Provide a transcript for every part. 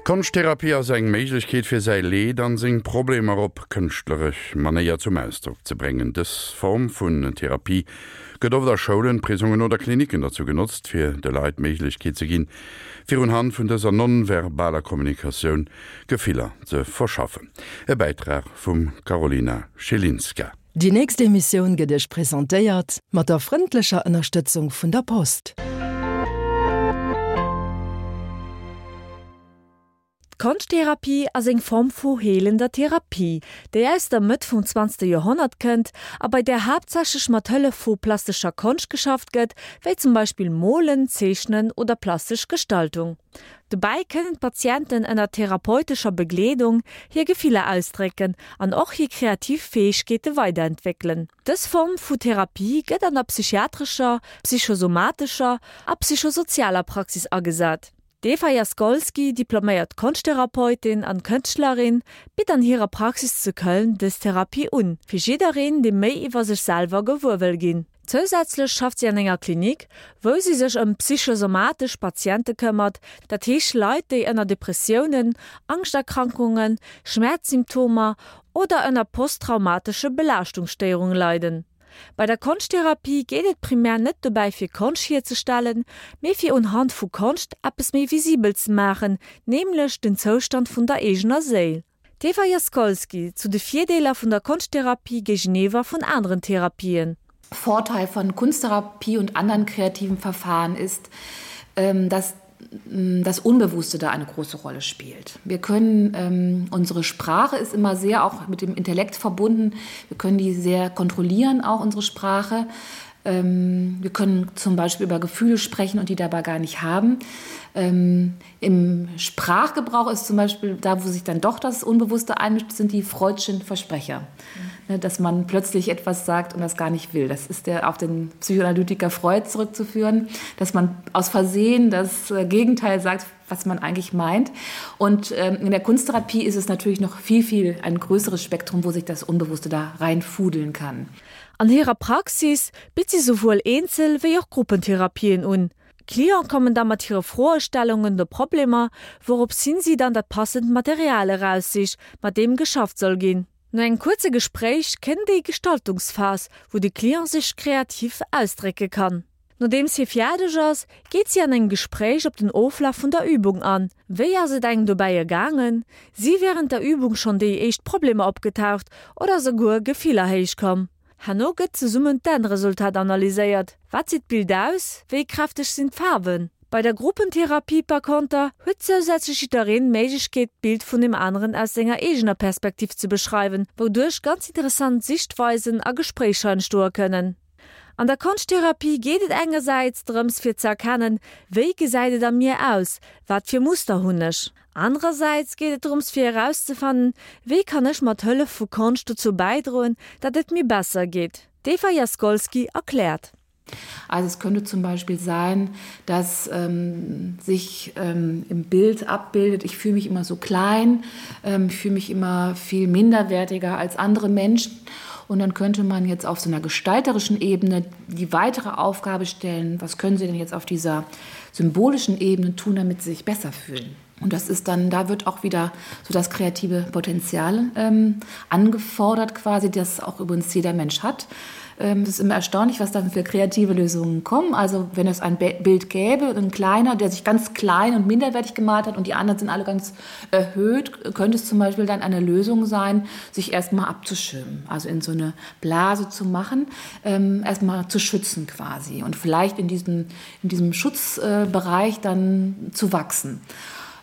Konschttherapie ass eng Méiglechkeet fir säi Leed an seng Problemer op kënschtleresch Manéier zum Ausdrock ze bréngen. Dës Form vun Therapie gëtt oft a Schoulen, Prisongen oder Klinicken derzou genotzt fir de Leit d'Méiglechkeet ze ginn, fir unhand vun dëser non-verbaler Kommunikatioun Gefiller ze verschaffen. E Bäitrag vum Karolina Schelinska. Déi nächst Emissioun gëtt Iech presentéiert mat der frëndlecher Ënnerstëtzung vun der Post. D'Konschttherapie ass eng Form vu heelender Therapie, déi aus der Mëtt vum zwanzegste Joerhonnert kënnt a bei där haaptsächlech mat Hëllef vu plastescher Konscht geschafft gëtt, wéi zum Beispill Molen, Zeechnen oder plastesch Gestaltung. Dobäi kënnen d'Patienten ënner therapeutescher Begleedung hir Gefiller ausdrécken an och hir kreativ Fäegkeete weiderentwéckelen. Dës Form vu Therapie gëtt an der psychiatrescher, psychosomatescher a psychosozialer Praxis agesat. D'Eva Jaskolski, diploméiert Konschttherapeutin an Kënschtlerin, bitt an hirer Praxis zu Köln dës Therapie un, fir jiddereen, dee méi iwwer sech selwer gewuer wëll ginn. Zousätzlech schafft si an enger Klinik, wou si sech ëm psychosomatesch Patiente këmmert, dat heescht Leit, déi ënner Depressiounen, Angschterkrankungen, Schmäerzsymptomer oder ënner posttraumatesche Belaaschtungsstéierunge leiden. Bei der Konschttherapie geet et primär net dobäi fir Konscht hierzestellen, mee fir unhand vu Konscht eppes méi visibel ze maachen, nämlech den Zoustand vun der eegener Séil. D'Eva Jaskolski zu de Virdeeler vun der Konschttherapie géigeniwwer vun anderen Therapien. Vorteil von Kunsttherapie und anderen kreativen Verfahren ist, ähm, dass mm, das Unbewusste da eine große Rolle spielt. Wir können ähm, unsere Sprache ist immer sehr auch mit dem Intellekt verbunden. Wir können die sehr kontrollieren auch unsere Sprache. Ähm, wir können zum Beispiel über Gefühle sprechen und die dabei gar nicht haben. Ähm, Im Sprachgebrauch ist zum Beispiel da, wo sich dann doch das Unbewusste einmischt, sind die freudschen Versprecher. Mhm. Dass man plötzlich etwas sagt und das gar nicht will. Das ist der auf den Psychoanalytiker Freud zurückzuführen, dass man aus Versehen das äh, Gegenteil sagt, was man eigentlich meint. Und ähm, in der Kunsttherapie ist es natürlich noch viel, viel ein größeres Spektrum, wo sich das Unbewusste da reinfudeln kann. An hirer Praxis bitt si souwuel Eenzel wéi och Gruppentherapien un. D'Cliente kommen da mat hire Froestellungen oder Problemer, wourops hin si dann dat passend Material eraussicht, mat deem geschafft soll ginn. No engem kuerze Gespréich kënnt déi Gestaltungsphas, wou de Client sech kreativ ausdrécke kann. Nodeems hie fäerdeg ass, geet si an engem Gespréich op den Oflaf vun der Übung an. Wéi ass et engem dobäi ergaangen? Si wärend der Übung schonn déi éischt Problemer opgetaucht oder souguer Gefiller héichkomm? Herno gëtt zesummen d'Endresultat analyséiert, Wat seet d'Bild aus? Wéi kräfteg sinn d'Faarwen? Bei der Gruppentherapie par konter huet zousätzlech jiddereen d'Méiglechkeet d'Bild vun deem aneren aus senger eegener Perspektiv ze beschreiwen, wouduerch ganz interessant Sichtweisen a Gespréicher entstoe kënnen. An der Konschttherapie geet et engersäits drëms fir ze erkennen, wéi gesäit et a mir aus, wat fir Muster hunn ech? Anerersäits geet et drëms fir erauszefannen, wéi kann ech mat Hëllef vu Konscht dozou bäidroen, datt et mir besser geet. D'Eva Jaskolski erkläert. Also es könnte zum Beispiel sein, dass ähm, sich ähm, im Bild abbildet, ich fühle mich immer so klein, ähm, ich fühle mich immer viel minderwertiger als andere Menschen. Und dann könnte man jetzt auf so einer gestalterischen Ebene die weitere Aufgabe stellen, was können Sie denn jetzt auf dieser symbolischen Ebene tun, damit Sie sich besser fühlen. Und das ist dann da wird auch wieder so das kreative Potenzial ähm, angefordert quasi, das auch übrigens jeder Mensch hat. Ähm, es ist immer erstaunlich, was dann für kreative Lösungen kommen. Also wenn es ein Bild gäbe, ein kleiner, der sich ganz klein und minderwertig gemalt hat und die anderen sind alle ganz erhöht, könnte es zum Beispiel dann eine Lösung sein, sich erstmal abzuschirmen, also in so eine Blase zu machen, ähm, erstmal zu schützen quasi und vielleicht in diesem, in diesem Schutzbereich dann zu wachsen.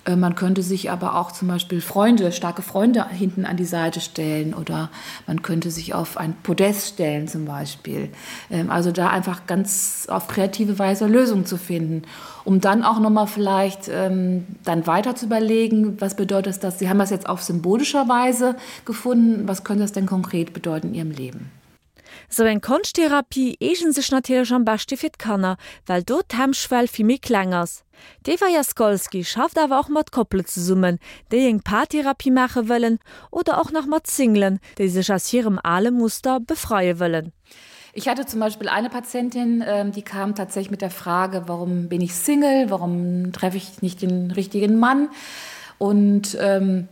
Äh, man könnte sich aber auch zum Beispiel Freunde, starke Freunde hinten an die Seite stellen oder man könnte sich auf ein Podest stellen zum Beispiel. Ähm, also da einfach ganz auf kreative Weise Lösungen zu finden, um dann auch noch mal vielleicht ähm, dann weiter zu überlegen, was bedeutet das? Sie haben das jetzt auf symbolischer Weise gefunden. Was könnte das denn konkret bedeuten in Ihrem Leben? Sou eng Konschttherapie eegent sech natierlech am beschte fir d'Kanner, well do d'Hemmschwell vill méi kleng ass. D'Eva Jaskolski schafft awer och mat Koppele zesummen, déi eng Paartherapie maache wëllen oder och nach mat Singlen, déi sech aus hirem ale Muster befreie wëllen. Ich hatte zum Beispiel eine Patientin, ähm, die kam tatsächlich mit der Frage, warum bin ich Single, warum treffe ich nicht den richtigen Mann? Und ähm,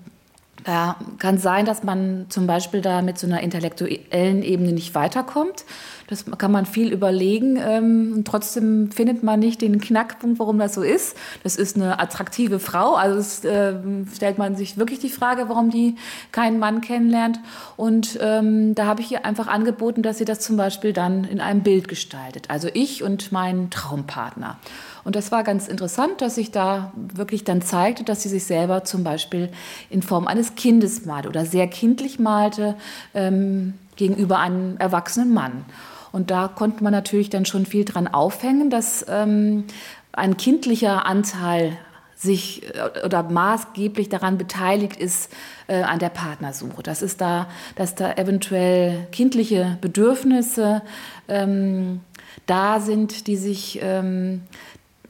da kann sein, dass man zum Beispiel da mit so einer intellektuellen Ebene nicht weiterkommt. Das kann man viel überlegen ähm, und trotzdem findet man nicht den Knackpunkt, warum das so ist. Das ist eine attraktive Frau, also es, äh, stellt man sich wirklich die Frage, warum die keinen Mann kennenlernt. Und ähm, da habe ich ihr einfach angeboten, dass sie das zum Beispiel dann in einem Bild gestaltet. Also ich und mein Traumpartner. Und das war ganz interessant, dass sich da wirklich dann zeigte, dass sie sich selber zum Beispiel in Form eines Kindes malte oder sehr kindlich malte ähm, gegenüber einem erwachsenen Mann. Und da konnte man natürlich dann schon viel dran aufhängen, dass ähm, ein kindlicher Anteil sich äh, oder maßgeblich daran beteiligt ist äh, an der Partnersuche. Das ist da, dass da eventuell kindliche Bedürfnisse ähm, da sind, die sich ähm,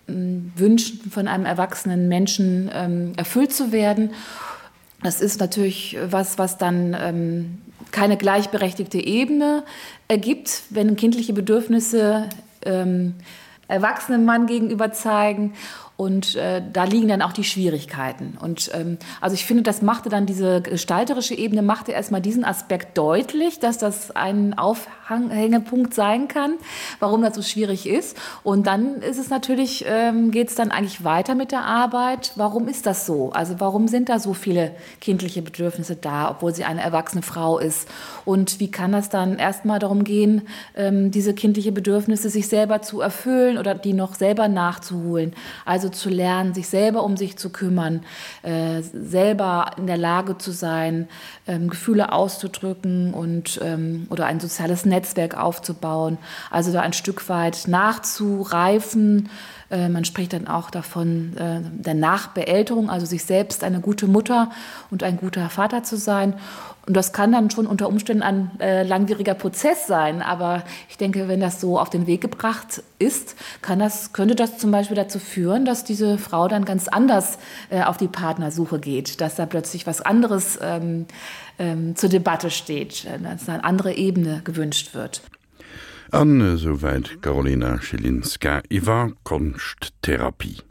wünschen, von einem erwachsenen Menschen ähm, erfüllt zu werden. Das ist natürlich was, was dann ähm, keine gleichberechtigte Ebene ergibt, wenn kindliche Bedürfnisse ähm, erwachsenen Mann gegenüber zeigen. Und äh, da liegen dann auch die Schwierigkeiten. Und ähm, also ich finde, das machte dann diese gestalterische Ebene machte erstmal diesen Aspekt deutlich, dass das ein Aufhängepunkt sein kann, warum das so schwierig ist. Und dann ist es natürlich, ähm, geht es dann eigentlich weiter mit der Arbeit. Warum ist das so? Also warum sind da so viele kindliche Bedürfnisse da, obwohl sie eine erwachsene Frau ist? Und wie kann das dann erstmal darum gehen, ähm, diese kindliche Bedürfnisse sich selber zu erfüllen oder die noch selber nachzuholen? Also zu lernen, sich selber um sich zu kümmern, äh, selber in der Lage zu sein, ähm, Gefühle auszudrücken und ähm, oder ein soziales Netzwerk aufzubauen, also da ein Stück weit nachzureifen. Äh, man spricht dann auch davon äh, der Nachbeälterung, also sich selbst eine gute Mutter und ein guter Vater zu sein. Und das kann dann schon unter Umständen ein äh, langwieriger Prozess sein. Aber ich denke, wenn das so auf den Weg gebracht ist, kann das, könnte das zum Beispiel dazu führen, dass diese Frau dann ganz anders äh, auf die Partnersuche geht, dass da plötzlich was anderes ähm, ähm, zur Debatte steht, äh, dass eine andere Ebene gewünscht wird. An esouwäit d'Karolina Schilinska iwwer Konschttherapie.